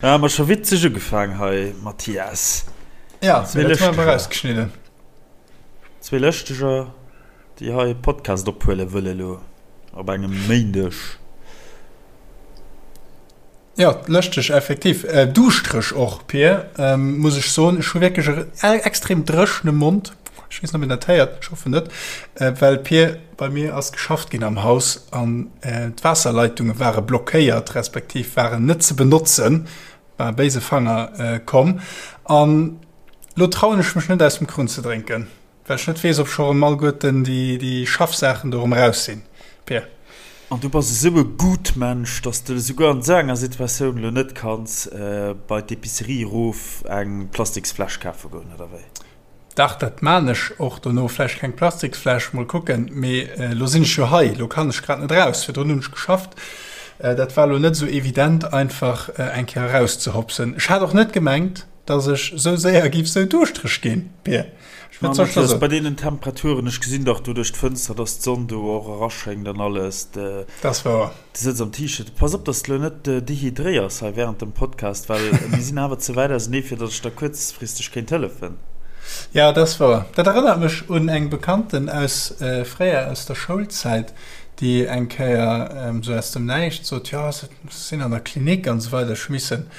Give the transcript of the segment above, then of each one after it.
Ah, mer scho witzeg ugefaang hei, Mathias. Ja, dat hu mer erausgeschnidden. Zwee Lëschteger, déi hei e Podcast ophuele wëlle lo op engem Méindeg. Ja, lëschteg effektiv. Duuschtereg och, Pir, muss ech soen. Ech hu wierklech e extrem dréchene Mond. Ech weess net, ob een dat héiert, ech hoffen net. Well, Pir, bei mir ass geschafft ginn am Haus an d'Waasserleitunge ware blockéiert, respektiv waren net ze benotzen, war e béise Fanger komm. An lo trauen ech mech net, aus dem Krunn ze drénken. Well ech net weess, ob scho rëm alleguerten déi Schaffsaachen do rëm eraus sinn, Pir. An du bass esou e Gutmensch, dass de esouguer an esou enger Situatioun elo net kanns bei d'Epicerie erof eng Plastiksfläsch kafe goen, oder wéi? Dach, dat maan ech och dono. Vläicht keng Plastiksfläsch, mol kucken. Mee elo sinn ech jo hei, elo kann ech grad net eraus. Virdrun hunn ech geschafft, dat war elo net esou evident, einfach eng Kéier erauszehopsen. Ech hat och net gemengt, dass ech esou séier giff esou duuschtereg ginn, Pir. Ma Mathias, bei deenen Temperaturen, ech gesinn dach do duerch d'Fënster, dass d'Sonn do och eraschéngt an alles. Dat ass wouer. Du sëtz am T-Shirt. Pass op, dass de lo net dehydréiers hei während dem Podcast, well mir sinn awer ze wäit ausenee, fir dass ech der kuerzfristeg kéint hëllefen. Jo, dat ass wouer. Dat erënnert mech un eng Bekannten aus fréier, aus der Schoulzäit, déi eng Kéier esou aus dem Näischt sot, Jo, ech sinn an der Klinik an esou weider, ech hu missen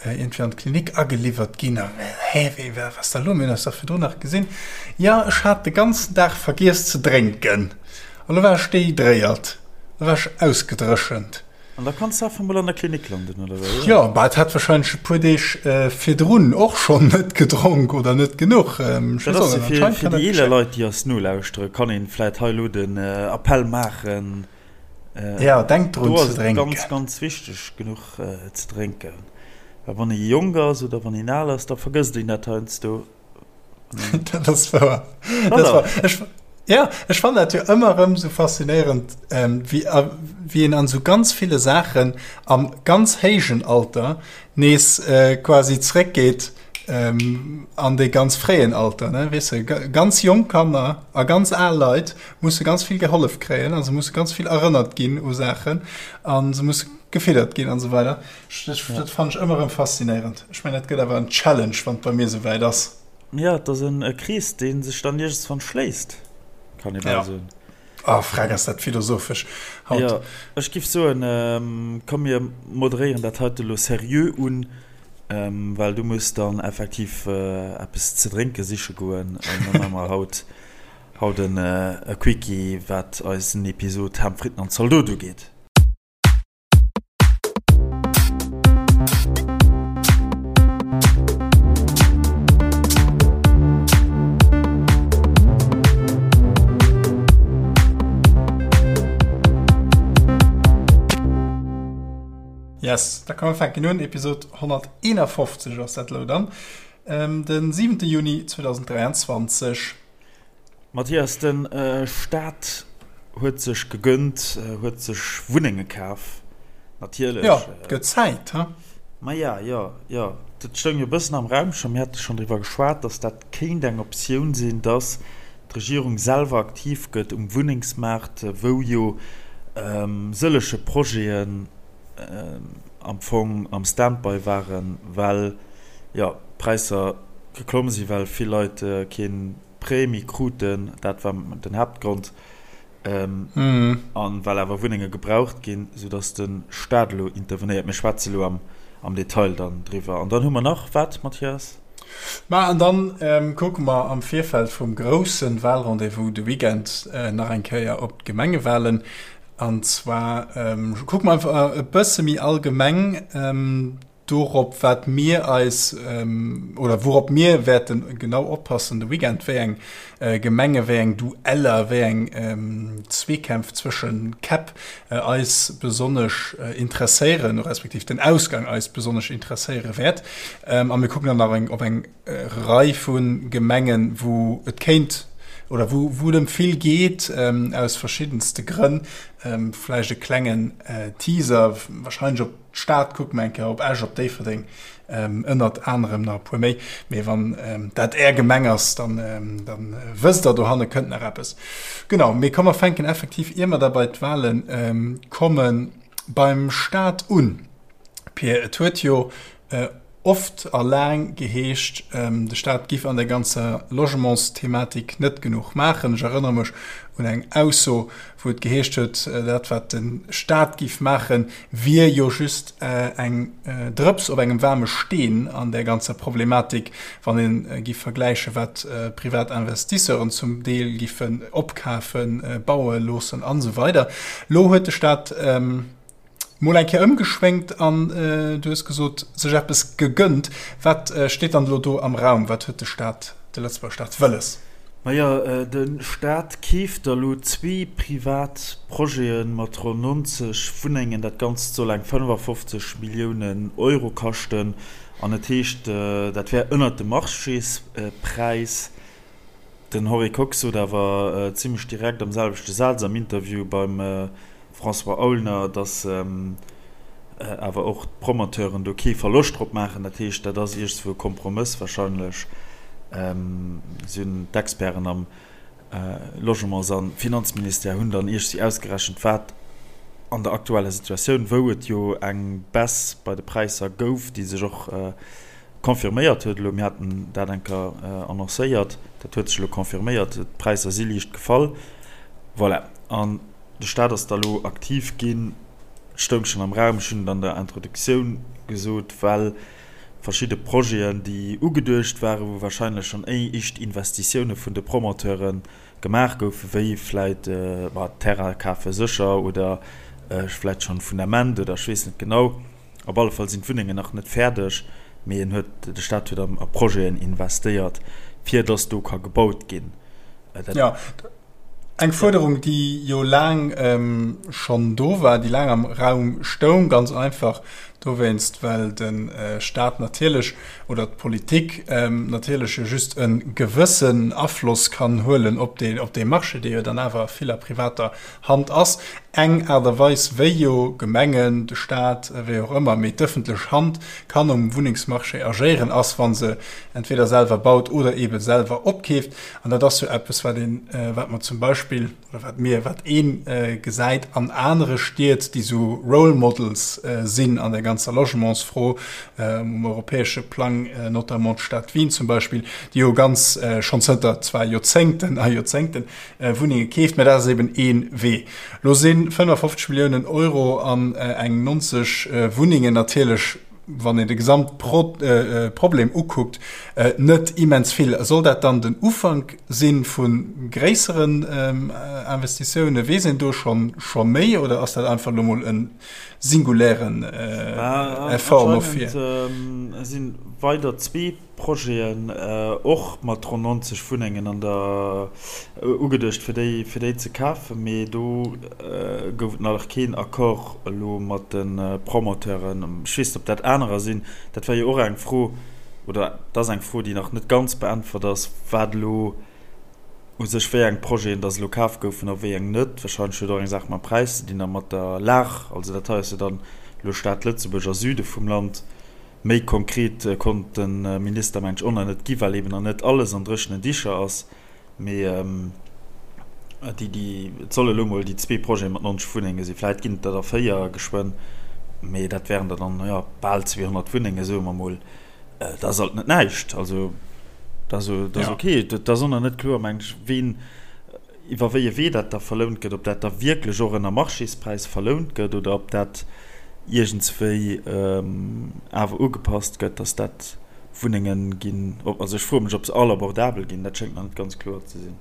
iergendwéi an d'Klinik ageliwwert ginn. A mir, Hä, wéi, wat ass da lo? Mir hunn eis dach virdrun nach gesinn. Jo, ech hat de ganzen Dag vergiess ze drénken. A lo war ech dehydréiert, lo war ech ausgedréchent. An da kanns de einfach mol an der Klinik landen, oder wéi? Jo, bah, et hat warscheinlech e puer Deeg virdrun och schonn net gedronk oder net genuch. Ech Dat ass jo fir, fir déi eeler Leit, déi eis nolauschteren, kann een vläit hei elo den Appell maachen, Ja, denkt drun ze drénken. Do ass et ganz, ganz wichteg, genuch ze drénken. Well wann ee jonk ass oder wann een al ass, da vergësst een dat heiansdo. Dat ass wouer. Dat ass wouer. Ech, ja, ech fannen dat jo ëmmer erëm sou faszinéierend, wéi, wéi een an sou ganz ville Saachen am ganz héijen Alter nees quasi zréckgeet an dee ganz fréien Alter, ne, weess de, ganz jonk Kanner a ganz al Leit musse ganz vill gehollef kréien a se musse ganz vill erënnert ginn u Saachen a se musse gefiddert ginn an esou weider. Dat fannen ech ëmmer erëm faszinéierend. Ech mengen, dat gëtt awer en Challenge, wann et bei mir esou wäit ass. Jo, et ass e Krees, dee sech dann iergendswann schléisst, kann ee bal soen. Oh, freck, ass dat philosophesch haut. Jo, ech giff soen, komm mir moderéieren dat heite lo seriö un, well du muss dann effektiv eppes ze drénke siche goen an da maache mer haut haut en Quickie, wat eisen Episod Ham, Fritten an Zaldot ugeet. Yes, da komm mer fänken un. Episod 151 ass dat elo dann. Den 7. Juni 2023. Mathias, de Staat huet sech gegönnt, huet sech Wunnenge kaf, natierlech. Jo, et gëtt Zäit, he? Maja, jo, jo. Dat stoung jo e bëssen am Raum scho. Mir hate schonn driwwer geschwat, datt dat kéint eng Optioun sinn, datt d'Regierung selwer aktiv gëtt um Wunnengsmaart, wou jo sëllege Projeten am Fong am Standby waren, well, jo, d'Präisser geklomm sinn, well vill Leit kee Prêt méi kruten, dat war den Haaptgrond, an well awer Wunnenge gebraucht ginn, soudass de Staat elo intervenéiert. Mir schwätze elo am Detail dann driwwer. An dann hu mer nach wat, Mathias? Ma an dann kucke mer am Virfeld vum grousse Wahlrendez-vous de Weekend nach eng Kéier op d'Gemengewahlen. An zwar kucke mer einfach e bësse méi allgemeng dorop, wat mir eis oder wourop mir wäerte genau oppassen de Weekend, wéi eng Gemenge, wéi eng Dueller, wéi eng Zweekämpf zwësche Käpp eis besonnesch interesséieren, respektiv den Ausgang eis besonnesch interesséiere wäert. A mir kucken dann nach eng op eng Rei vu Gemengen, wou et kéint oder wou wou et ëm vill geet, aus verschiddenste Grënn. Vläicht e klengen Teaser, wahrscheinlech op d'Stad kucke mer eng Kéier, op Esch, op Déifferdeng, ënnert anerem nach e puer méi. Mee wann dat Är Gemeng ass, dann dann wësst Der, dohanne kënnt nach eppes. Genau, mee komm mer fänken effektiv, ier mer da bei d'Wale kommen, beim Staat un. Pir, et huet jo. oft a laang geheescht, de Staat giff an der ganzer Logementsthematik net genuch maachen. Ech erënnere mech un eng Ausso, wou et geheescht huet, dat wat de Staat giff maachen, wier jo just eng Drëps op engem waarme Steen an där ganzer Problematik, wann ee giff vergläichen, wat privat Investisseuren zum Deel giffen opkafen, baue loossen an esou weider. Lo huet de Staat Mol eng Kéier ëmgeschwéngt an du hues gesot, sech eppes gegënnt. Wat steet dann elo do am Raum? Wat huet de Staat, de Lëtzebuerger Staat wëlles? Majo, de Staat keeft der elo zwee privat Projete mat ronn 90 Wunnengen. Dat Ganzt soll eng 55 Milliounen Euro kaschten an et heescht, dat wär ënnert dem Marchéspräis. Den Henri Kox sot awer zimmlech direkt am selwechte Saz am Interview beim François Aulner, datt awer och d'Promoteuren do kee Verloscht drop maachen. Dat heescht, dat ass iergendswou e Kompromëss warscheinlech. Si hunn d'Experten am Logements a Finanzministère hunn dann iergendwéi ausgerechent, wat an der aktueller Situatioun, wou et jo eng Baisse bei de Präisser gouf, déi sech och confirméiert huet elo, mir haten dat eng Kéier annoncéiert, dat huet sech elo confirméiert, d'Präisser si liicht gefall, voilà. An de Staat ass da elo aktiv ginn, et stoung schonn am Raum, ech hunn et an der Introduktioun gesot, well verschidde Projeten, déi ugeduecht waren, wou wahrscheinlech schonn éischt Investitioune vun de Promoteure gemaach goufen, wéi vläit Terrain kafe sécher oder vläit schonn Fundament oder ech weess net genau, Op alle Fall sinn d'Wunnengen nach net fäerdeg, mee en huet, de Staat huet a Projeten investéiert, fir datt do ka gebaut ginn. Jo, eng Fuerderung, déi jo laang schonn do war, déi laang am Raum stoung, ganz einfach dowéinst, well de Staat natierlech oder d'Politik natierlech jo just e gewëssen Afloss kann huelen op dee Marché, dee jo dann awer vill a privater Hand ass eng Aart a Weis, wéi jo Gemengen, de Staat, wéi och ëmmer, mee d'ëffentlech Hand kann um Wunnengsmarché agéieren, ass, wa se entweder selwer baut oder eebe selwer opkeeft. An dat ass jo eppes, wat een, wat mer zum Beispill, oder wat mir, wat ee gesäit an anere Stied, déi esou Role Models sinn an der ganzer Logementsfro um europäesche Plang, notamment d'Stad Wien zum Beispill, déi jo ganz schonn zënter zwar Joerzéngten a Joerzéngten Wunnenge keeft, mä dat ass eben ee Wee. Lo si 55 Milliounen Euro an eng 90 Wunnengen natierlech, wann een de Gesamtproblem ukuckt, net immens vill. Soll dat dann den Ufank si vu gréisseren Investitiounen? Weess een do scho méi oder ass dat einfach elo mol e singulären Effort no vir? Anscheinend si weider zwee Projeten, och mat ronn 90 Wunnengen an der ugeduecht fir déi fir déi ze kafen, mee do gouf et nach keen Accord elo mat de Promoteuren. Ech weess net, ob dat anerer sinn. Dat war jo och eng Fro, oder et ass eng Fro, déi nach net ganz beäntwert ass, wat elo u sech wéi eng Projeten dass elo kaf goufen a wéi eng net. Wahrscheinlech huet och eng Saach mam Präis ze dinn a mat der Lag. Also dat hei ass jo dann elo Stad Lëtzebuerg a Süde vum Land. Méi konkret konnt de Minister mengt ech och nach net gi, well eben nach net alles an dréchenen Dicher ass. Mee déi, déi, et solle elo mol déi zwee Projete mat 90 Wunnenge sinn. Vläit ginn et der da véier geschwënn, mee dat wären der dann, jo, bal 200 Wunnenge soe mer mol. Dat ass alt net näischt. Also dat ass ok. Et ass och nach net kloer, mengt ech, ween, Iwwer wéi e Wee dat da verlount gëtt, ob dat da wierklech och ënner Marchéspräis verlount gëtt oder ob dat iergendswéi awer ugepasst gëtt, dass dat Wunnenge ginn, also ech froe mech, ob se all abordabel ginn, dat schéngt nach net ganz kloer ze sinn.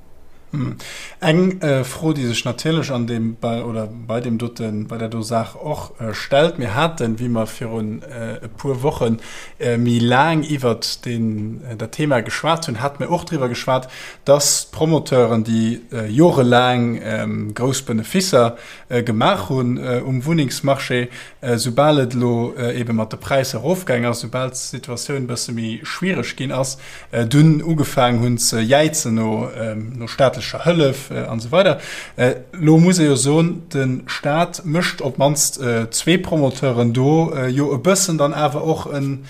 Eng Fro, déi sech natierlech an deem oder bei deem doten, bei där do Saach och stellt, Mir haten, wéi mer virun e puer Woche méi laang iwwert deen, dat Thema geschwat hunn, hate mir och driwwer geschwat, dass d'Promoteuren, déi jorelaang grouss Benefisser gemaach hunn um Wunnengsmarché, soubal et elo eebe mat de Präisser erofgaang ass, soubal d'Situatioun e bësse méi schwiereg ginn ass, dunn ugefaang hunn ze jäizen no staatlecher Hëllef an esou weider. Elo muss ee jo soen, de Staat mécht op d'mannst zwee Promoteuren do jo e bëssen dann awer och en.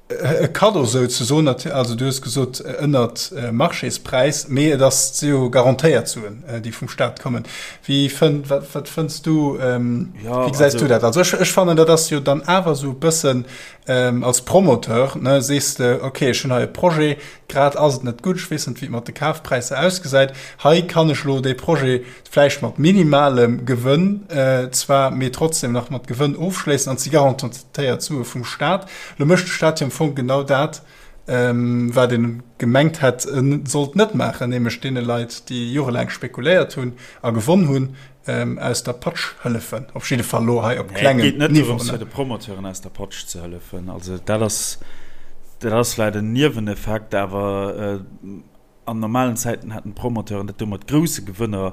E Kaddo souzesoen, also du hues gesot ënnert Marchéspräis, mee et ass si jo garantéiert Suen, déi vum Staat kommen. Wéi fënn, wat, wat fënns du, wéi gesäis du dat? Also ech, ech fannen, dat ass jo dann awer esou e bëssen als Promoteur, ne, sees de, okay, ech hunn hei e Projet, grad ass et net gutt, ech weess net, wéi et mat de Kafpräisser ausgesäit, hei kann ech elo dee Projet vläicht mat minimalem Gewënn zwar, mee trotzdem nach mat Gewënn ofschléissen an si garantéiert Sue vum Staat. Lo mécht de Staat jo am Fong genau dat, wat e gemengt hätt, e sollt net maachen, nämlech deene Leit, déi jorelaang spekuléiert hunn a gewonn hunn, aus der Patsch hëllefen. Op jidde Fall elo hei op klengem Niveau. Et geet net dorëms, fir de Promoteuren aus der Patsch ze hëllefen. Also dat ass, dat ass vläicht en Nieweneffekt, awer An normalen Zäiten hätten d'Promoteuren dat do mat grousse Gewënner,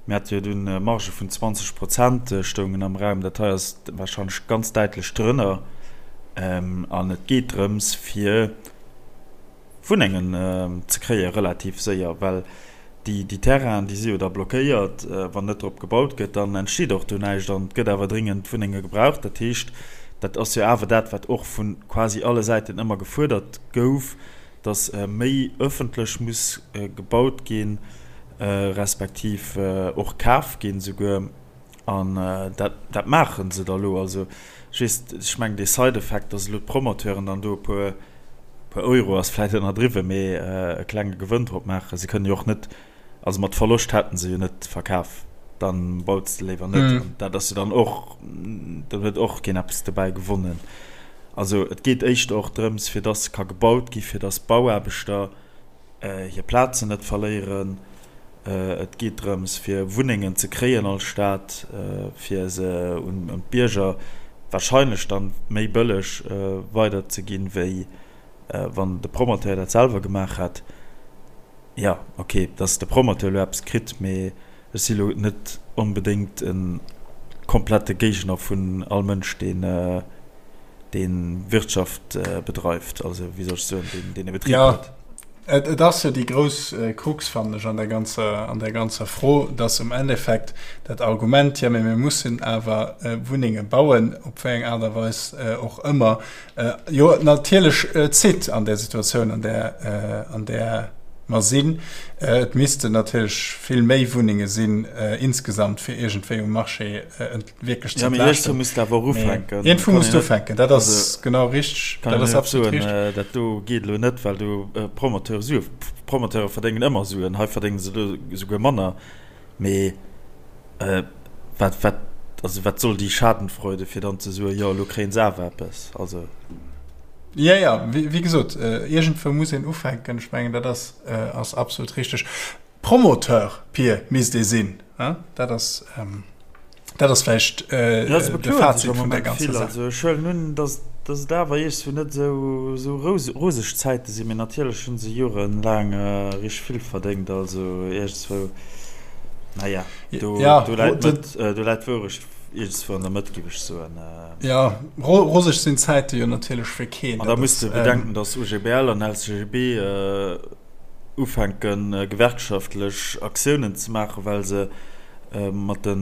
mir hate jo dunn Margë vun 20 Prozent stoungen am Raum, dat hei ass warscheinlech ganz däitlech drënner. An et geet drëms, fir Wunnengen ze kréie relativ séier, well déi Terrainen, déi si jo da blockéiert, wann net drop gebaut gëtt, dann entsteet och do näischt an et gëtt awer dringend Wunnenge gebraucht. Dat heescht, dat ass jo awer dat, wat och vu quasi alle Säiten ëmmer gefuerdert gouf, dass méi ëffentlech muss gebaut ginn, respektiv och kaf ginn esouguer. An dat, dat maache se da elo. Also ech weess, ech mengen dee Side-Effekt, dass elo d'Promoteuren dann do e puer, puer Euro ass vläicht ënnerdriwwen, mee e klenge Gewënn drop maachen. Se kënnen jo och net, also mat Verloscht hätte se jo net verkaf, dann baut s de léiwer net. An dat ass jo dann och, dann huet och keen eppes dobäi gewonnen. Also et geet éischter och drëms, fir dass ka gebaut gi, fir dass d'Bauaarbechter hir Plazen net verléieren. Et geet drëms, fir Wunnengen ze kréien als Stad, fir se un d'Bierger wahrscheinlech dann méi bëlleg weiderzeginn, wéi wann de Promoteur dat selwer gemaach hätt. Jo, ok, dass de Promoteur elo eppes kritt, mee ech si elo net onbedéngt e komplette Géigner vun all Mënsch, deen dee Wirtschaft bedreift, also wéi soll ech soen, deen deen e Betrib huet. Jo, et ass jo déi grouss Krux, fannen ech, an der ganzer, an där ganzer Fro, dass um Endeffekt dat Argument, jo, mee mir mussen awer Wunnenge bauen, op wéi eng Aart a Weis och ëmmer, jo natierlech zitt an där Situatioun, an där, an där mer sinn. Et missten natierlech vill méi Wunnenge sinn insgesamt, fir iergendwéi um Marché wierklech ze entlaaschten. Ja, mee iergendwou muss de awer och ufänken. Iergendwou muss de ufänken, dat ass genau richteg. Kann een net soen, dat do geet elo net, well do Promoteure Sue, Promoteure verdéngen ëmmer Suen, hei verdénge se elo esouguer manner. Mee wat, wat, also wat soll déi Schadenfreude, fir dann ze soen, jo elo kréien se awer eppes, also. Jo, jo, wéi gesot, iergendwou muss een ufänken. Ech mengen, dat ass, ass absolut richteg. Promoteur, Pir, misst ee sinn, dat ass, dat ass vläicht de Fazit vun där ganzer Saach. Also ech huelen un, datt, datt et awer iergendwou net esou, esou roseg Zäite sinn, mee natierlech hu se jorelaang richteg vill verdéngt, also iergendswou, naja, do, do läit d'Mëtt, do läit d'Wourecht iergendswou an der Mëtt, géif ech soen. Jo, roseg sinn d'Zäite jo natierlech fir keen. An da muss de bedenken, datt OGBL an LCGB ufänken, gewerkschaftlech Aktiounen ze maachen, well se mat de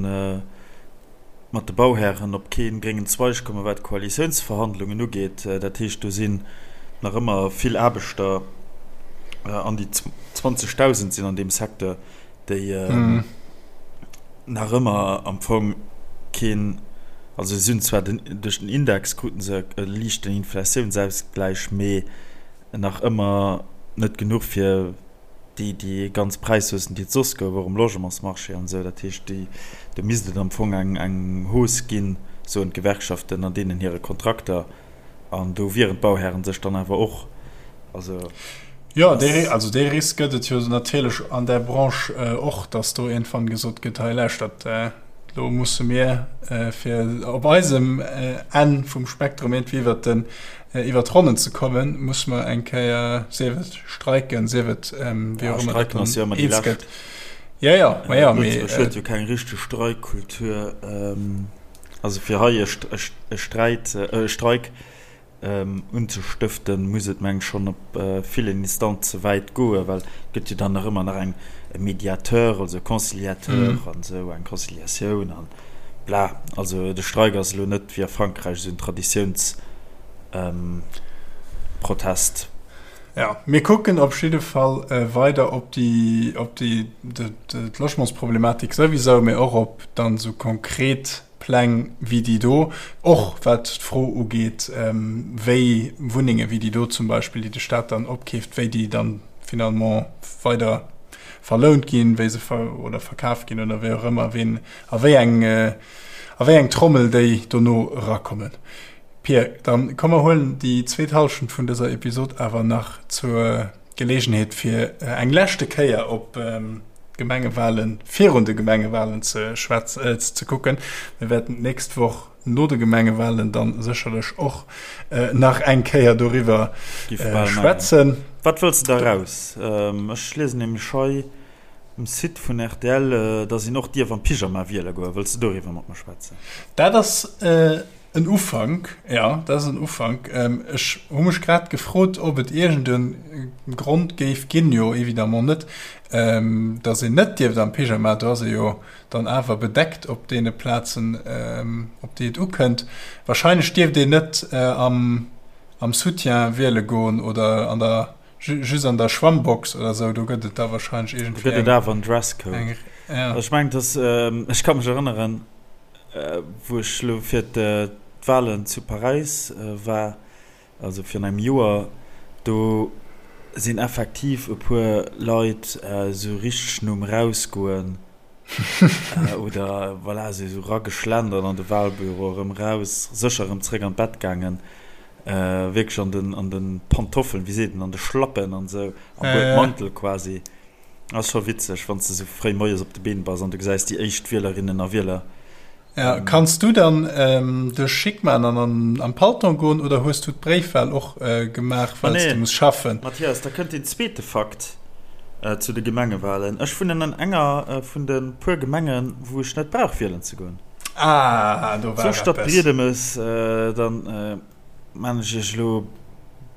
mat de Bauhären op kee gréngen Zweig kommen, wat d'Koalitiounsverhandlungen ugeet. Dat heescht, do sinn nach ëmmer vill Aarbechter, an déi 20.000 sinn an deem Secteur, déi nach ëmmer am Fong keen, also si hunn zwar den, duerch den Index kruten se e liichten Inflatiounsausgläich, mee nach ëmmer net genuch fir déi déi ganz Präishaussen, déi et soss gouf, och um Logementsmarché an esou. Dat heescht, déi, do misst et am Fong eng eng Hausse ginn, soen d'Gewerkschaften an deenen hire Kontrakter. An do wieren d'Bauhären sech dann awer och. Also. Jo, dee, also dee Risk gëtt et jo natierlech an där Branche och, datt do iergendwann gesot gëtt, hei lauschtert, elo musse mir fir op eisem Enn vum Spektrum iergendwéi iwwert den Iwwer d'Ronnen ze kommen, muss mer eng Kéier, sief et streiken, sief et wéi och ëmmer dat dann eens gëtt. Jo, jo, ma jo, mee. Lëtzebuerg huet jo keng richteg Streikkultur. Also fir hei e Sträit, e Streik unzestëften, muss et meng ech schonn op villen Instanze wäit goen, well et gëtt jo dann nach ëmmer nach eng e Mediateur, also e Conciliateur an esou, eng Conciliatioun an. Bla, also de Streik ass elo net wéi a Frankräich esou en Traditiouns. Protest. Jo, mir kucken op jidde Fall weider op déi, op déi, d'Logementsproblematik souwisou, mee och op dann esou konkret Pläng wéi déi do, och wat d'Fro ugeet, wéi Wunnenge wéi déi do zum Beispill, déi de Staat dann opkeeft, wéi déi dann finalement weider verlount ginn, wéi se oder verkaf ginn oder wéi och ëmmer, ween a wéi eng, a wéi eng Trommel déi dono erakommen. Pir, dann komm mer huelen déi zweet Hallschent vun dëser Episod awer nach zur Gelegenheet fir eng leschte Kéier op d'Gemengewahlen virun de Gemengewahlen ze schwätzen, ze kucken. Mir wäerten d'nächst Woch no de Gemengewahlen dann sécherlech och nach eng Kéier doriwwer schwätzen. Wat wëlls de da raus? Ech liesen nämlech hei um Site vun rtl, dass een och dierf am Pyjama wiele goen. Wëlls de doriwwer mat mer schwätzen? Dat ass En Ufank, jo, dat ass en Ufank. Ech hu mech grad gefrot, ob et iergend e Grond géif ginn, jo évidemment net, datt een net dierft am Pyjama, do ass ee jo dann awer bedeckt op deene Plazen, op déi et ukënnt. Wahrscheinlech dierft een net am Soutien wiele goen oder an der, just an der Schwammbox oder esou, do gëtt et da wahrscheinlech iergendwéi eng. Do gëtt et awer en Dresscode. Ech mengen, dass, ech ka mech erënneren, Wou ech elo fir d'Wahlen zu Paräis war, also virun engem Joer, do sinn effektiv e puer Leit esou richteg nom Erausgoen oder voilà, esou erageschlendert an de Wahlbüro, erëm eraus, sécher erëm zréck an d'Bett gaangen, wierklech an den, an de Pantoffeln, wéi seet een, an de Schlappen an esou, am Buedmantel quasi. Ass scho witzeg, wann s de sou fréi moies op de Been bass an du gesäis déi éischt Wielerinnen a Wieler. Ja, kanns du dann dech schick man an am Palton goen oder hues du d'Bréifwahl och gemaach, well s du muss schaffen? Mathias, da kënnt deen zweete Fakt zu de Gemengewahlen, Ech wunnen an enger vun de puer Gemengen, wou ech net brauch wielen ze goen. Ah, do war eppes. Zur Stad Briedemes, dann. Maan ech iech elo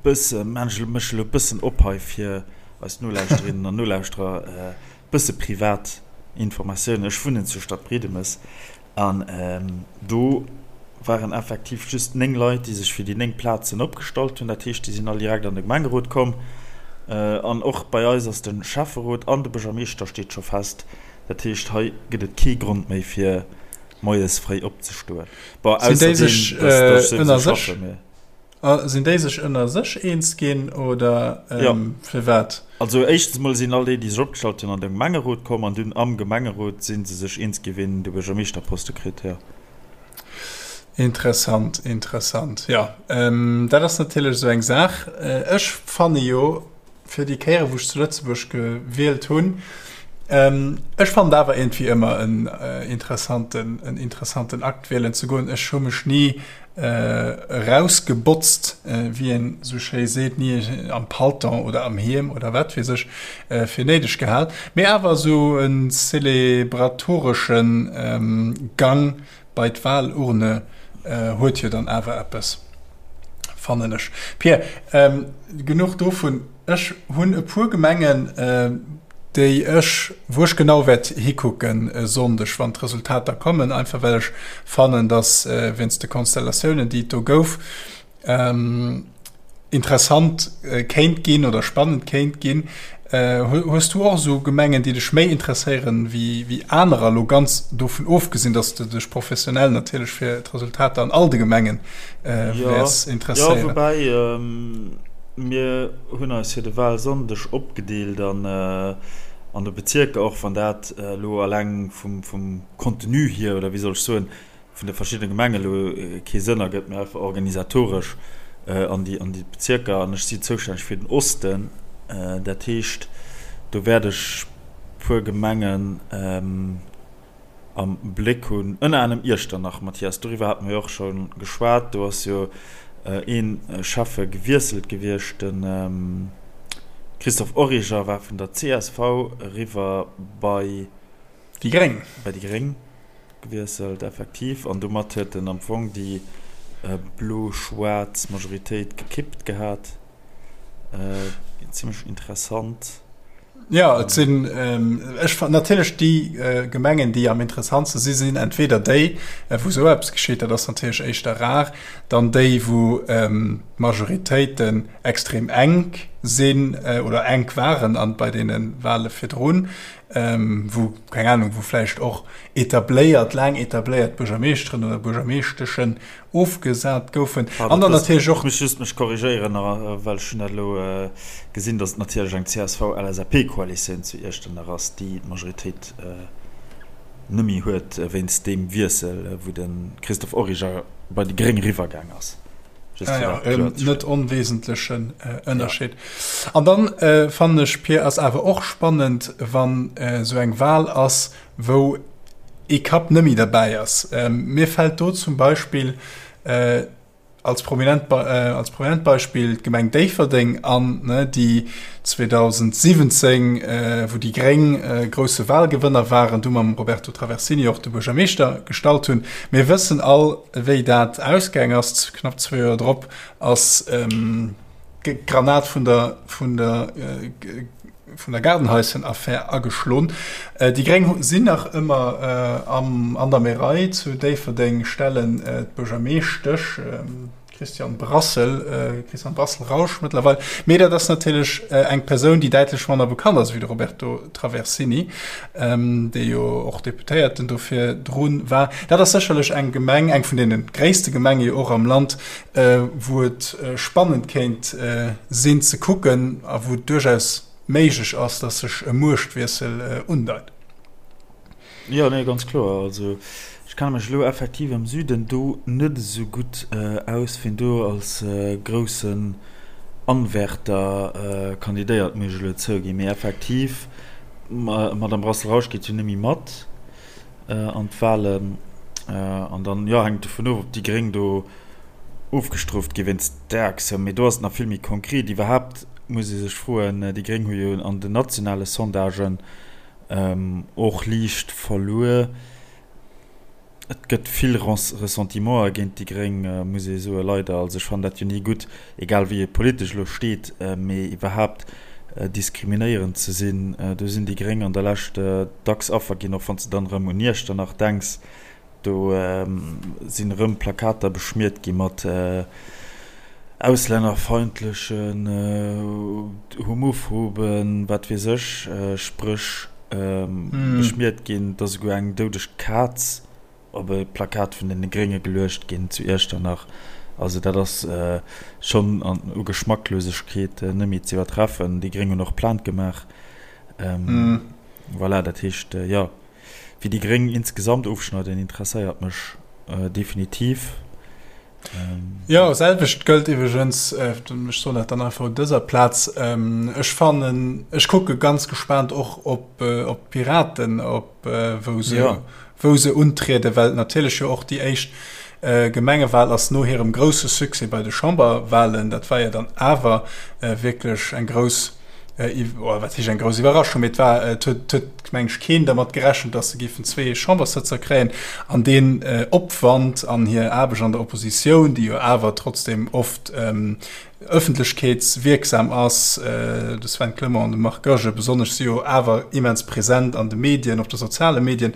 bësse, maan ech mech elo bëssen op hei fir eis Nolauschterinnen an Nolauschterer, bësse privat Informatiounen. Ech wunnen zu Stadbriedemes an do waren effektiv just 9 Leit, déi sech fir déi 9 Plazen opgestallt hunn. Dat heescht, déi sinn all direkt an de Gemengerot komm. An och bei eis ass de Schäfferot an de Buergermeeschter steet scho fest. Dat heescht, hei gëtt et kee Grond méi fir moies fréi opzestoen. Bon, Sinn déi sech ënner sech Sinn déi sech ënner sech eens ginn oder ja. firwat? Also éischtens mol sinn all déi, déi sech opgestallt hunn, an de Gemengerot komm an dunn am Gemengerot si se sech eens ginn, wien de Buergermeeschterposte kritt, jo. Interessant, interessant. Jo, dat ass natierlech esou eng Saach. Ech fanne jo, fir déi Kéiere wou ech zu Lëtzebuerg gewielt hunn. Ech fannen et awer iergendwéi ëmmer en interessanten, en interessanten Akt wielen ze goen. Ech hu mech ni erausgebotzt, wéi een esou schéi seet, ni am Palton oder am Hiem oder wat weess ech, fir néideg gehal. Mee awer esou e celebratoresche Gang Bei d'Wahlurne huet jo dann awer eppes, fannen ech. Pierre, genuch dovun. Ech hunn e puer Gemengen, déi ech, wou ech genau wäert hikucken e Sonndeg, wann d'Resultater kommen, einfach well ech fannen, datt wéinst de Konstellatiounen, déi et do gouf, interessant kéint ginn oder spannend kéint ginn. Hues du och esou Gemengen, déi dech méi interesséieren wéi anerer, elo ganz dovun ofgesinn, datt s de dech professionell natierlech fir d'Resultater an all de Gemenge wäers interesséieren? Jo, woubäi mir hunn eis fir de Wahlsonndeg opgedeelt an an de Bezierker, och wann dat elo alleng vum Contenu hier, oder wéi soll ech soen, vun de verschiddene Gemengen elo kee Sënn ergëtt, mee einfach organisatoresch an déi an déi Bezierker. An ech si zoustänneg fir den Osten, dat heescht, do wäert ech puer Gemengen am Bléck hunn, ënner anerem Iechternach. Mathias, doriwwer hate mer jo och scho geschwat. Do ass jo ee Schäffe gewiesselt gewiescht, de Christophe Origer war vun der csv eriwwer bei déi Gréng. Bei déi Gréng. Gewiesselt, effektiv, an domat huet en am Fong déi blo-schwaarz Majoritéit gekippt gehat. Zimmlech interessant. Jo, et sinn, ech fannen natierlech déi Gemengen, déi am interessantste si sinn entweder déi, wou esou eppes geschitt, dat ass natierlech éischter rar, dann déi, wou. d'Majoritéiten extrem enk sinn oder enk waren an bei deene Wale virdrun, wou, keng Ahnung, wou vläicht och etabléiert, laang etabléiert Buergermeeschteren oder Buergermeeschteschen ofgesat goufen. An dann natierlech och. Ech muss just mech korrigéieren, well ech hunn dat elo gesinn, datt et natierlech eng CSV-LSAP-Koalitioun zu Iechternach ass, déi d'Majoritéit nëmme huet wéinst deem Wiessel, wou de Christophe Origer bei déi Gréng eriwwergaang ass. Just fir dat kloer ze stellen. Net onwesentlechen Ënnerscheed. An dann fannen ech, Pir, ass awer och spannend, wann esou eng Wahl ass, wou ee Kapp nëmme derbäi ass. Mir fält do zum Beispill als prominent, als prominent Beispill d'Gemeng Déifferdeng an, déi 2017, wou déi Gréng grousse Wahlgewënner waren, du mam Roberto Traversini och de Buergermeeschter gestallt hunn. Mir wëssen all, wéi dat ausgaang ass. Knapp zwee Joer drop ass d'Granat vun der, vun der, vun der Gaardenhaischen-Affär ageschloen. Déi Gréng sinn nach ëmmer am, an der Märei zu Déifferdeng, stellen d'Buergermeeschtesch Christiane Brassel, Christiane Brassel-Rausch mëttlerweil. Mee dat ass natierlech eng Persoun, déi däitlech manner bekannt ass wéi de Roberto Traversini, dee jo och Deputéierten do virdru war. Dat ass sécherlech eng Gemeng, eng vun deene gréisste Gemenge jo och am Land, wou et spannend kéint sinn ze kucken a wou et duerchaus méiglech ass, datt sech e Muechtwiessel undeit. Jo, nee, ganz kloer. Also ech kenne mech elo effektiv am Süden do net esou gutt aus, wien do als groussen Anwärter kandidéiert, muss ech elo zouginn. Mee effektiv, d'Madame Brassel-Rausch geet jo net méi mat an d'Wahlen. An dann, jo, hänkt et dovun of, ob déi Gréng do ofgestrooft gi wéinst där Aktioun. Mee do ass et nach vill méi konkret. Iwwerhaapt muss ee sech froen, déi Gréng hu jo an den nationale Sondagen Och liicht verluer. Et gëtt vill Ressentimenter géint déi Gréng, muss ee soen, leider. Also ech fannen dat jo ni gutt, egal wéi ee politesch elo steet, mee iwwerhaapt diskriminéierend ze sinn, do sinn déi Gréng an der Lescht dacks Affer ginn, och wann s de dann erëm un Iechternach denks. Do sinn erëm Plakater beschmiert gi mat auslännerfeindlechen, homophoben, wat weess ech, Spréch beschmiert ginn. Et ass esouguer eng doudeg Kaz op e Plakat vun deene Grénge geluecht ginn zu Iechternach. Also dat ass schonn u Geschmacklosegkeet net méi ze iwwertreffen. Déi Gréng hunn och Plainte gemaach. Voilà, dat heescht, jo. Wéi déi Gréng insgesamt ofschneiden, interesséiert mech definitiv. Jo, selwecht gëllt iwwregens, ech soen dat dann einfach un dëser Plaz, ech fannen, ech kucke ganz gespaant och op d'Piraten, op wou se, wou se untrieden, well et natierlech jo och déi éischt Gemengewal ass no hirem grousse Succès bei de Chamberwalen. Dat war jo dann awer wierklech eng grouss, wat heescht eng grouss Iwwerraschung, mee et war, et huet, huet meng ech keen dermat gerechent, datt se géifen zwee Chamberssëtzer kréien. An deen Opwand an hir Aarbecht an der Oppositioun, déi jo awer trotzdem oft ëffentlechkeetswierksam ass, de Sven Clement an de Marc Goergen besonnesch si jo awer immens present an de Medien, op de soziale Medien,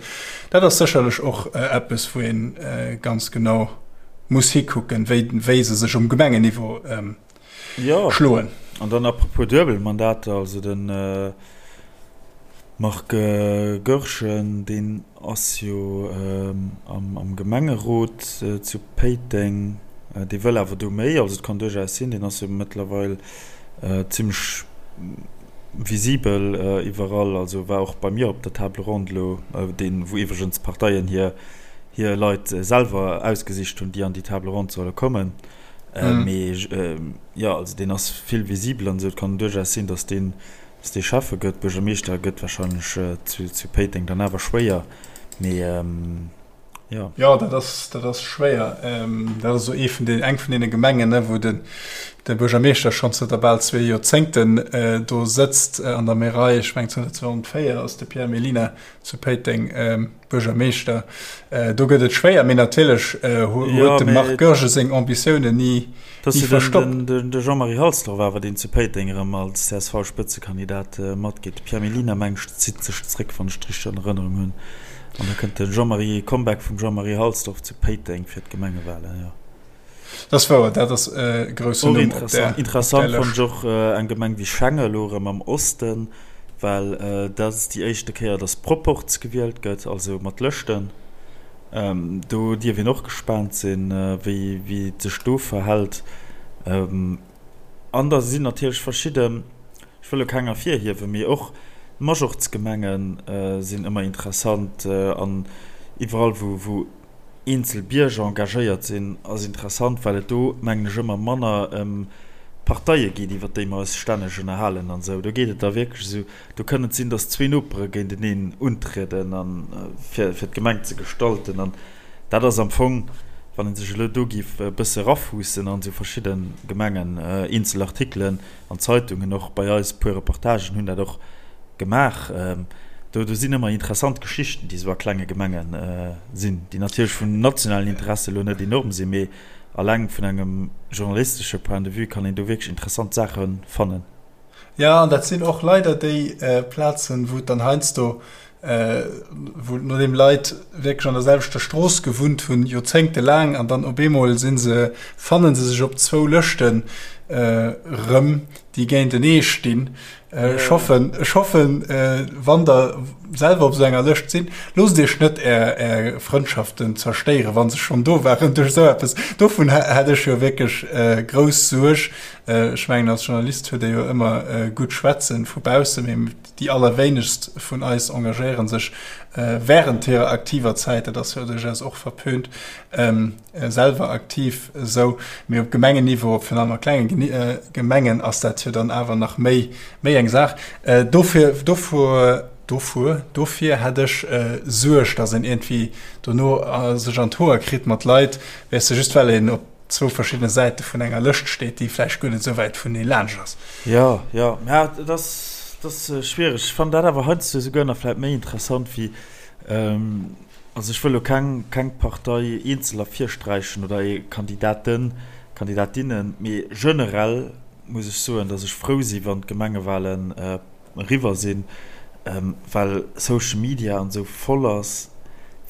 dat ass sécherlech och eppes, wou ee ganz genau muss hikucken, wéi, wéi se sech um Gemengenniveau schloen. An dann apropos Duebelmandater, also de Marc Goergen, deen ass jo am Gemengerot zu Péiteng, dee wëll awer do méi, also et kann duerchaus sinn, deen ass jo mëttlerweil zimmlech visibel iwwerall, also war och bei mir op der Table ronde elo, deen, wou iwwregens d'Parteien hir Leit selwer ausgesicht hunn, déi an déi Table ronde solle kommen. Mee jo, also deen ass vill visibel an esou. Et kann duerchaus sinn, datt deen, datt dee Schäffe gëtt. Buergermeeschter gëtt warscheinlech zu, zu Péiteng dann awer schwéier. Mee jo. Jo, dat ass, dat ass schwéier. Dat ass esou ee vun den, eng vun deene Gemengen, ne, wou den, de Buergermeeschter schonn zënter bal zwee Joerzéngten do sëtzt an der Märei. Ech mengen zënter 2004 ass de Pierre Mellina zu Péiteng. Buergermeeschter, do gëtt et schwéier, mee natierlech huet de Marc Goergen seng Ambitiounen ni verstoppt. De Jean-Marie Halsdorf awer, deen zu Péiteng erëm als CSV-Spëtzekandidat matgeet. De Pierre Mellina, meng ech, zitt sech zréck, wann ech et richteg an Erënnerung hunn. An da kënnt de Jean-Marie, Comeback vum Jean-Marie Halsdorf zu Péiteng fir d'Gemengewalen, jo. Dat ass wouer, dat ass e groussen Numm op där Lëscht. Interessant fannen ech och eng Gemeng wéi Schengen, elo erëm am Osten, well dat ass déi éischte Kéier, datt Proporz gewielt gëtt, also mat Lëschten. Do dierf een och gespaant sinn, wéi et sech do verhält. An da sinn natierlech verschidden, ech wëll elo keng ervirhiewen, mee och Majorzgemenge sinn ëmmer interessant an iwwerall, wou eenzel Bierger engagéiert sinn, ass interessant, well et do, mengen ech, ëmmer manner ëm Parteie geet, iwwer déi mer eis stänneg ënnerhalen an esou. Do geet et da wierklech esou, do kënn et sinn, datt zwee Nopere géinteneen untrieden a fir fir d'Gemeng ze gestalten. An dat ass am Fong, wann ee sech elo do géif e bësse erafuussen an esou verschidde Gemengen, eenzel Artikelen, An d'Zeitungen, och bei eis, puer Reportagen hunn dat och gemaach. Do, do sinn ëmmer interessant Geschichten, déi esou a klenge Gemenge sinn, déi natierlech vun nationalen Interesse elo net enorm sinn, mee alleng vun engem journalistesche Point de vue kann een do wierklech interessant Saache fannen. Jo, an dat sinn och leider déi Plazen, wou et dann heiansdo wou nodeem Leit wierklech an der selwechter Strooss gewunnt hunn, joerzéngtelaang, an dann op eemol si se, fannen se sech op zwou Lëschten erëm, déi géintenee stinn. Ech hoffen, ech hoffen, wann Der selwer op esou enger Lëscht sinn, loosst Iech net Är, Är Frëndschaften zerstéieren, wa se schonn do waren, duerch esou eppes. Dovun hätt ech jo wierklech grouss Suerg. Ech mengen, als Journalist huet ee jo ëmmer gutt schwätzen vu bausse, mee Déi allerwéinegst vun eis engagéiere sech wärend hirer aktiver Zäit, dat ass jo duerchaus och verpönt, selwer aktiv esou. Mee op Gemengenniveau, op virun allem a klenge Gemengen, ass dat jo dann awer nach méi méi eng Saach. Dofir, dovur, dovur, dofir hätt ech Suerg, datt een iergendwéi dono sech an d'Hoer kritt mat Leit, weess de, just well een op zwou verschiddene Säite vun enger Lëscht steet, déi vläicht guer net esou wäit vunee laanscht ass. Jo, jo, mä et ass, et ass schwiereg. Ech fannen dat awer heiansdo esouguer nach vläicht méi interessant wéi, also ech wëll elo keng, keng Partei eenzel ervirsträichen oder ee Kandidaten, Kandidatinnen, mee generell muss ech soen, datt ech frou si wann d'Gemengewahlen eriwwer sinn, well Social Media an esou voll ass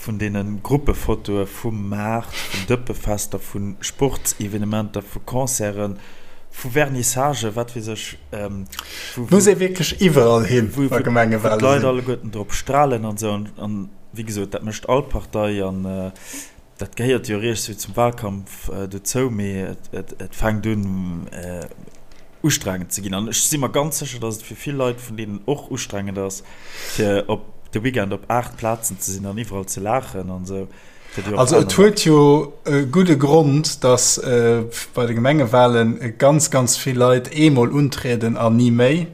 vun deene Gruppefotoe vum Maart, vun Dëppefester, vu Sportsevenementer, vu Concerten, vu Vernissagen, wat weess ech, wou Muss ee wierklech iwwerall hin, wa Gemengewale sinn. Wou d'Leit alleguerten drop stralen an esou. An wéi gesot, dat mécht all Partei an dat gehéiert jo riicht sou zum Wahlkampf dozou, mee et fänkt un ustrengend ze ginn. An ech si mer ganz sécher, datt et fir vill Leit vun deenen och ustrengend ass, fir op de Weekend op 8 Plazen ze sinn an iwwerall ze laachen an esou. Also et huet jo e gudde Grond, datt bei de Gemengewahlen ganz, ganz vill Leit eemol untrieden an ni méi.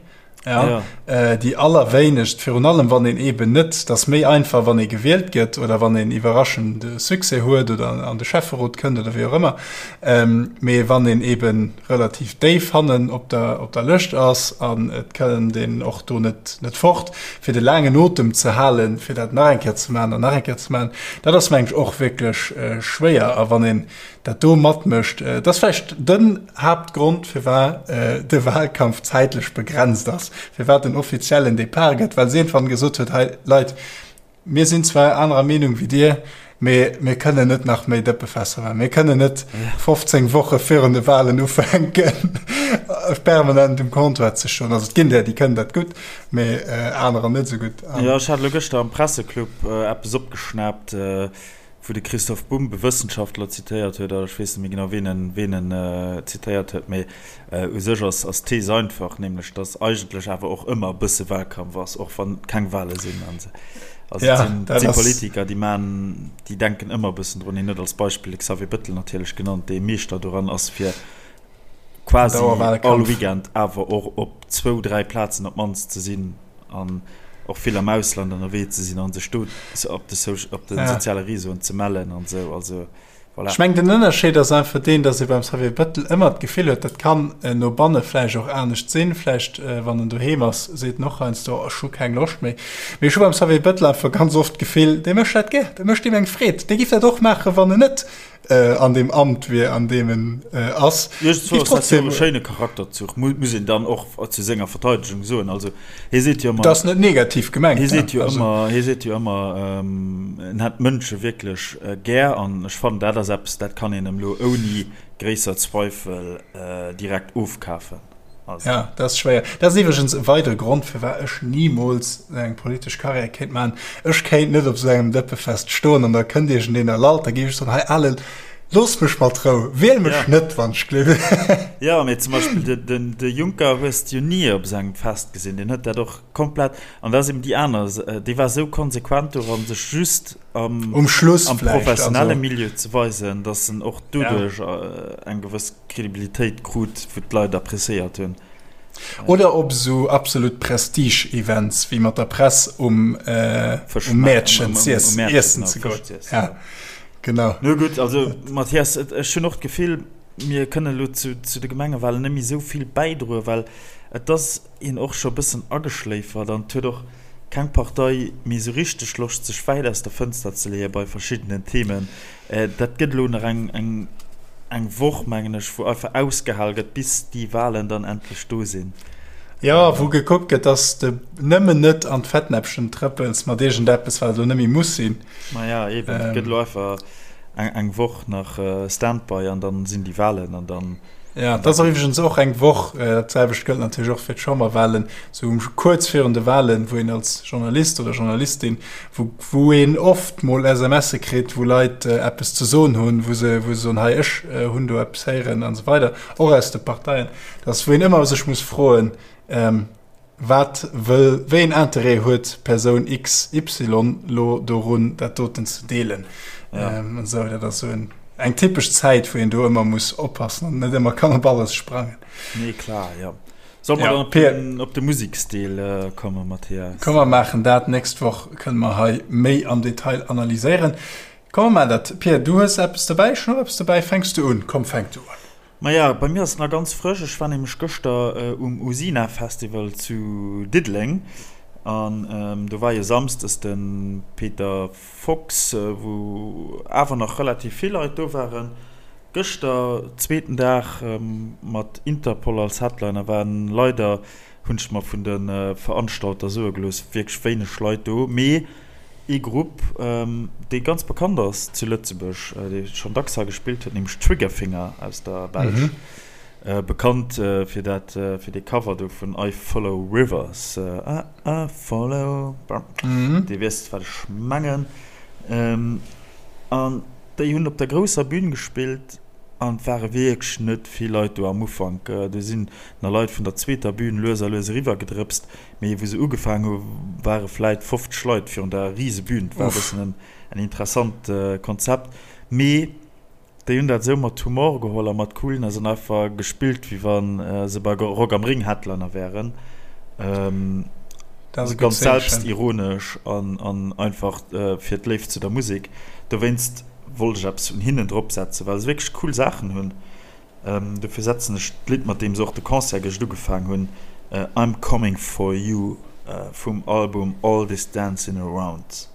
Ja, ja. Äh, déi allerwéinegst, virun allem wann een eben net, dat ass méi einfach wann ee gewielt gëtt oder wann een iwwerraschend Succès huet oder an de Schäfferot kënnt oder wéi och ëmmer. Ähm, mee wann een eben relativ déif hannen op der, op der Lëscht ass an et kënnt een och do net, net fort, fir de laangen Otem ze halen, fir dat nach eng Kéier ze maachen an nach eng Kéier ze maachen, dat ass mengen ech och wierklech äh, schwéier. A wann een dat do matmécht. Dat ass vläicht den Haaptgrond, firwat de Wahlkampf zäitlech begrenzt ass, firwat en offiziellen Depart gëtt, well se iergendwann gesot huet, hei Leit, mir sinn zwar anerer Meenung wéi dir, mee mir kënnen net nach méi Dëppefässer maachen, mir kënnen net 15 Woche virun de Wahlen ufänken, permanent um Comptoir ze stoen. Also et ginn der, déi kënnen dat gutt, mee anerer net esou gutt. Jo, ech hat elo gëschter am Presseclub eppes opgeschnaapt, wou de Christoph Bumb e Wëssenschaftler zitéiert huet, ech weess net méi genau, ween en, ween en zitéiert huet, mee u sech ass, ass d'Thees einfach, nämlech datt eigentlech awer och ëmmer e bësse Wahlkampf ass, och wann keng Wahle sinn. An se, also et sinn, et si Politiker, déi man, déi denken ëmmer e bëssen drun. Hien huet als Beispill de Xavier Bettel natierlech genannt, dee Meeschter doran ass, fir quasi all Weekend awer och op zwou, dräi Plazen op d'mannst ze sinn. An och vill am Ausland ënnerwee ze sinn an sech do op de op de soziale Réseauen ze mellen an esou. Also voilà. Ech mengen den Ënnerscheed ass einfach deen, datt ee beim Xavier Bettel ëmmer d'Gefill huet, dat kann no banne vläicht och anescht sinn, vläicht wann en doheem ass, seet en och heiansdo, ech hu keng Loscht méi. Mee ech hu beim Xavier Bettel einfach ganz oft d'Gefill, dee mécht dat gär, dat mécht him eng Freed, dee giff dat och maachen, wann en net. an deem Amt wier, an deem en ass. Iergendwou ass dat jo e schéine Charakterzuch, muss een dann och zu senger Verteidegung soen. Also hie seet jo ëmmer. Dat ass net negativ gemengt. Hie seet jo ëmmer, hie seet jo ëmmer, en hätt d'Mënsche wierklech gär. An ech fannen, dat ass eppes, dat kann een em elo ouni gréisser Zweifel direkt ofkafen. Also. Ja, dat ass schwéier. Dat ass iwwregens e weidere Grond, firwat ech nimools eng politesch Karriär kéint maachen. Ech kéint net op esou engem Dëppefest stoen an da kënnt iergendeen a lallt, da géif ech soen, hei Alen, looss mech mat Rou, wiel mech ja. net, wann ech gleef. Ja, mee zum Beispill de, de, de Juncker hues de jo ni op esou engem Fest gesinn. Deen huet dat och komplett, an dat ass eben déi aner, dee war esou konsequent doran, sech just am, um Schluss am professionelle also. Milieu ze weisen, datt en och doduerch ja. eng gewëss Kredibilitéit krut, wou d'Leit appréciéiert hunn. Oder op esou absolut Prestige-Events, wéi mat der Press um Mäertchen iessen ze goen. Ja, genau. No gutt, also Mathias, ech hunn och d'Gefill, mir kënnen elo zu de Gemengewalen net méi esou vill bäidroen, well et ass een och scho e bëssen ageschléifert an et huet och keng Partei méi esou richteg Loscht, sech wäit aus der Fënster ze leeë bei verschiddenen Themen. Dat gëtt elo nach eng eng Woch, mengen ech, wou einfach ausgehal gëtt, bis déi Walen dann endlech do sinn. Jo, wou gekuckt gëtt, dass de nëmmen net an d'Fettnäppchen trëppels mat iergendeppes, wat elo net méi muss sinn. Maja, eben, et gëtt elo einfach eng Woch nach Standby an dann sinn déi Walen an dann. Ja, dat ass iwwregens och eng Woch, dat selwecht gëllt natierlech och fir d'Chamberwahlen, sou kuerz virun de Wahlen, wou een als Journalist oder Journalistin, wou, wou een oft mol SMSe kritt, wou Leit eppes ze soen hunn, wou se, wou se soen, hei ech hunn do eppes héieren an esou weider, och aus de Parteien, dass wou een ëmmer sech muss froen, Wat wëll, wéi een Interêt huet Persoun XY lo dorun, dat doten ze deelen? Ja. Ähm, esou, dat ass sou en, eng typesch Zäit, wou een do ëmmer muss oppassen an net ëmmer kann op alles sprangen. Nee, klar, ja. Soll mer ja, dann op den, op de Museksdeel äh, kommen, Mathias? Komm, mer maachen dat. Nächst Woch kënne mer hei méi am Detail analyséieren. Komm, mer maachen dat. Pierre, du hues eppes dobäi, ech hunn och eppes dobäi. Fänks du un? Komm, fänk du un. Maja, bei mir ass et nach ganz frësch. Ech war nämlech gëschter um Usina Festival zu Diddeleng an do war jo samsdes de Peter Fox, wou awer nach relativ vill Leit do waren. Gëschter, zweeten Dag mat Interpol als Headliner, waren leider, hunn ech mer vun de Veranstalter soe gelooss, wierklech wéineg Leit do. Mee Ee Grupp, dee ganz bekannt ass zu Lëtzebuerg, dee schonn dacks hei gespillt huet, nämlech Triggerfinger aus der Belsch. Bekannt fir dat, fir dee Cover do vun I Follow Rivers, I, I follow, Dir wiesst, wat ech mengen. An déi hunn op der grousser Bün gespillt an et ware wierklech net vill Leit do am Ufank. Do sinn nach Leit vun der zweeter Bün lues a lues eriwwergedrëpst. Mee wou se ugefaang hu ware vläit 50 Leit virun der rise Bühn. Et war e bëssen en en interessant Konzept. Mee déi hunn dat esou mat Humor geholl a mat Coolness an einfach gespillt, wéi wa se bei Rock am Ring Headliner wären. Dat ass e gutt Ganz Zeechen. selbstironesch an an einfach fir d'Léift zu der Musek. Dowéinst wollt ech eppes vun hinnen dropsetzen, well se wierklech cool Saachen hunn. Dofir setzen ech d'Lidd mat deem se och de Concert gëscht ugefaang hunn, I'm Coming For You vum Album All This Dancin' Around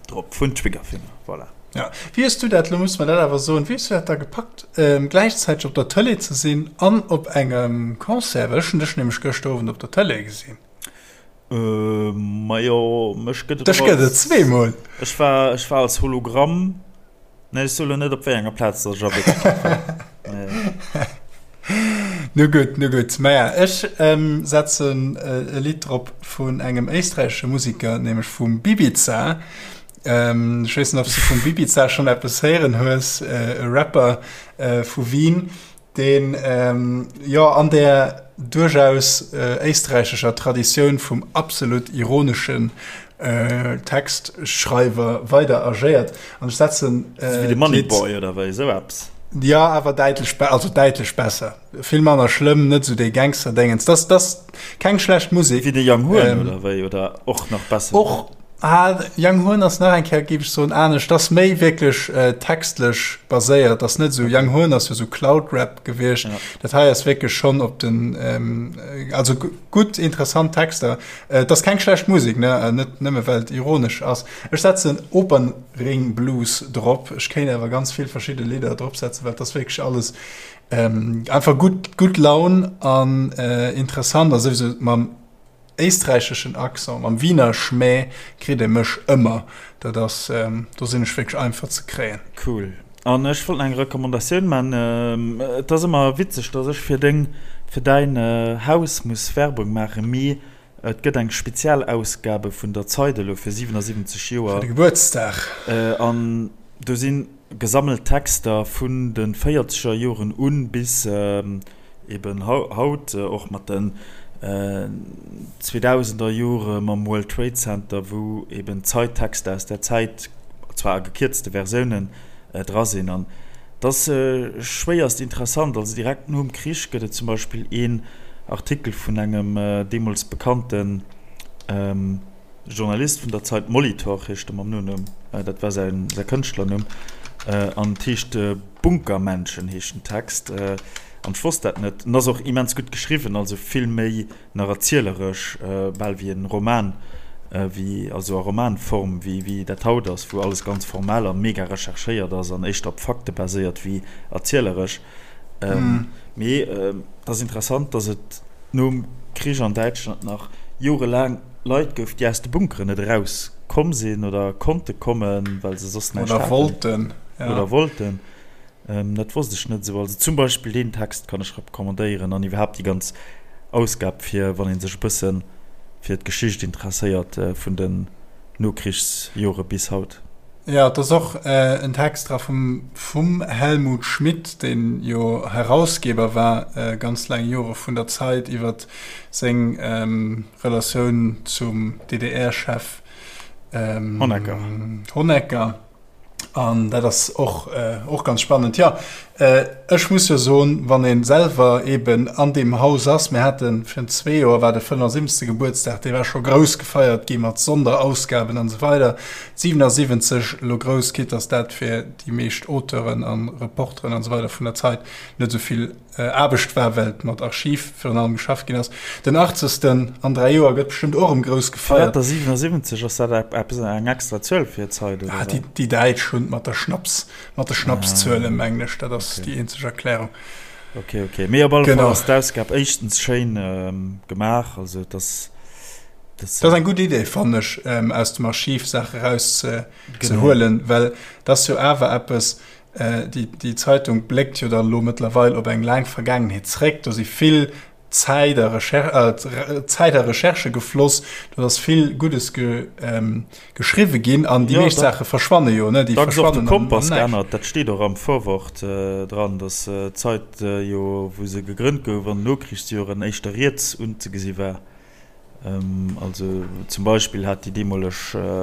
drop, vun Triggerfinger. Voilà. Ja, wéi hues du dat, lo muss mer dat awer soen, wéi hues du dat da gepackt, gläichzäiteg op der Tëlee ze sinn an op engem Concert? Well ech hunn dech nämlech gëschter Owend op der Tëlee gesinn. Majo, mech gëtt et Dech och gëtt et als, zweemol. ech war, ech war als Hologramm. Nee, ech soe lo net op wéi enger Plaz datt ech a Wierklechkeet war. Nee. Nu gutt, nu gutt. Maja, ech setzen e Lidd drop vun engem éisträichesche Musiker, nämlech vum Bibiza. Ech weess net, ob s du vum Bibiza schonn eppes héieren hues, e Rapper vu Wien. deen jo an där duerchaus éisträichescher Traditioun vum absolut ironeschen Textschreiwer weider agéiert. An ech setzen Wéi de Moneyboy oder wéi esou eppes? Jo, awer däitlech, also däitlech besser. Vill manner schlëmm, net esou dee Gangster-Déngens. Dat ass keng schlecht Musek. Wéi de Young Horn oder wéi? Oder och nach besser? Och. Ah, Young Horn ass nach eng Kéier, géif ech soen, anescht. Dat ass méi wierklech textlech baséiert. Dat ass net esou, Young Horn ass jo esou Cloud-Rap gewiescht. Ja. Dat hei ass wierklech schonn op den, also gutt, interessant Texter. Et ass keng schlecht Musek, ne, net nëmme well et ironesch ass. Ech setzen Opernring Blues drop. Ech kéint awer ganz vill verschidde Lidder dropsetzen, well et ass wierklech alles einfach gutt, gutt Laun an interessant a souwisou mam éisträicheschen Accent, mam Wiener Schmäh kritt ee mech ëmmer. Dat ass, do sinn ech wierklech einfach ze kréien. Cool. An ech wollt nach eng Recommandatioun man. Et ass ëmmer witzeg, dass ech fir deng, fir däin Haus muss Werbung maachen, mee et gëtt eng Spezialausgabe vun der Zeit elo fir 77 Joer. Fir de Gebuertsdag. An do si gesammelt Texter vun de véierzeger Joren un bis Eben haut, och mat den zweedausender Jore mam World Trade Center, wou eben Zeittexter aus där Zäit, zwar a gekierzte Versiounen, dra sinn. An et ass schwéierst interessant. Also direkt nom Krich gëtt et zum Beispill een Artikel vun engem deemools bekannten Journalist vun der Zeit, Molitor heescht e mam Nonumm, dat war säi Kënschtlernumm, an et heescht Bunkermenschen heescht den Text, an ech wosst dat net. En ass och immens gutt geschriwwen, also vill méi nach erzieleresch, bal wéi en Roman, wéi, also a Romanform, wéi wéi dat haut ass, wou alles ganz formell a mega recherchéiert ass an éischter op Fakte baséiert wéi erzieleresch. Mee et ass interessant, datt et nom Krich an Däitschland nach jorelaang Leit gouf, déi aus de Bunkeren net eraus komm sinn oder konnte kommen, well se soss näischt haten. Oder wollten. Ja. Oder wollten. Dat wosst ech net esou. Also zum Beispill deen Text kann ech recommandéieren an iwwerhaapt déi ganz Ausgab, fir wann ee sech e bësse fir d'Geschicht interesséiert vun den Nokrichsjore bis haut. Jo, et ass och en Text dra vum vum Helmut Schmidt, deen jo Herausgeber war ganz laang Jore vun der Zeit, iwwer seng Relatioun zum DDR-Chef Honecker. Honecker. An dat ass och, och ganz spannend. Jo, ech muss jo soen, wann ee selwer eeben an deem Haus ass, mir hate virun zwee Joer war de 75. Gebuertsdag, dee war scho grouss gefeiert gi mat Sonderausgaben an esou weider. 77 elo grouss, quitte dass dat fir déi meescht Auteuren a Reporteren an esou weider vun der Zeit net esou vill Aarbecht war, well mat Archiv virun allem geschafft ginn ass. Den Achtzegsten an 3 Joer gëtt bestëmmt och erëm grouss gefeiert. Firwat der 77? Ass dat eppes eng extra Zuel fir d'Zeit oder wat? Déi Däitsch hunn mat der Schnaps, mat de Schnapszuelen, mengen ech. Dat ass déi eenzeg Erklärung. Ok, ok. Mee op alle Fall ass d'Ausgab éischtens schéin gemaach, also et ass. Dat ass eng gutt Idee, fannen ech, aus dem Archiv Saache eraus ze huelen, well dat ass jo awer eppes, Déi Zeitung bléckt jo dann elo mëttlerweil op eng laang Vergaangenheet zréck. Do si vill Zäit a Zäit a Recherchë gefloss, do ass vill Guddes geschriwwe ginn an déi meescht Saache verschwanne jo, ne? Déi verschwannen am Näischt. Kompass geännert, dat steet och am Vorwort dran, datt d'Zeit jo, wou se gegrënnt gouf, an den Nokrichsjoren éischter riets unzegesi war. Also zum Beispill hat déi deemoleg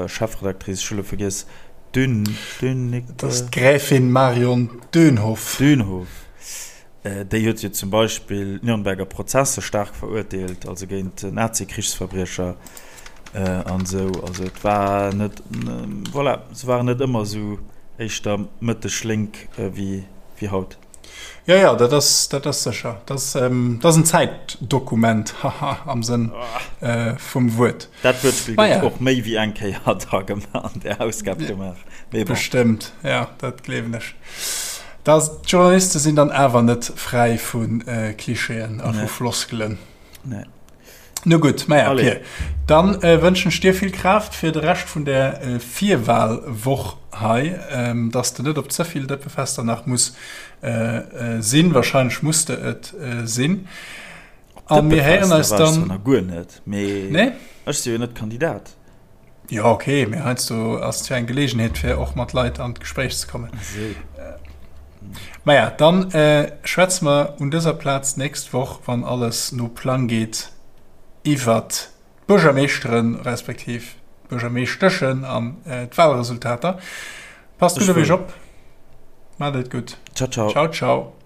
Chefredactrice, ech hu lo vergiess, Dün, Dün, Dat ass d'Gräfin Marion Dönhoff. Dönhoff. Déi huet jo zum Beispill d'Nürnberger Prozesse staark verurteelt, also géint Nazi-Krichsverbriecher an esou. Also et war net, voilà, se waren net ëmmer esou éischter mëtteg-lénk wéi haut. Jo, jo, dat ass, dat ass sécher. Dat ass, dat ass en Zäitdokument, haha, am Sënn vum Wuert. Dat Wuertspill gëtt och méi wéi eng Kéier da an där Ausgab gemaach. Mee bon. Bestëmmt, jo, dat gleewen ech. Da, d'Journaliste sinn dann awer net fräi vu Klischeeën a vu Floskelen. Nee. No gutt, maja Pir, dann wënschen ech dir vill Kraaft fir de Rescht vun der Virwahlwoch hei, dass de net op ze vill Dëppefester nach muss sinn. Wahrscheinlech muss de et sinn. A mir héieren eis dann. Nach guer net, mee nee? Ech si jo net Kandidat. Jo ok, mee heiansdo ass et jo eng Geleegenheet fir och mat Leit an d'Gespréich ze kommen. Esou. Maja, dann schwätze mer un dëser Plaz d'nächst Woch, wann alles no Plang geet, iwwert d'Buergermeeschteren, respektiv d'Buergermeeschteschen an d'Wahlresultater. Passt gutt op iech op, maacht et gutt. Ciao, ciao. Ciao, ciao.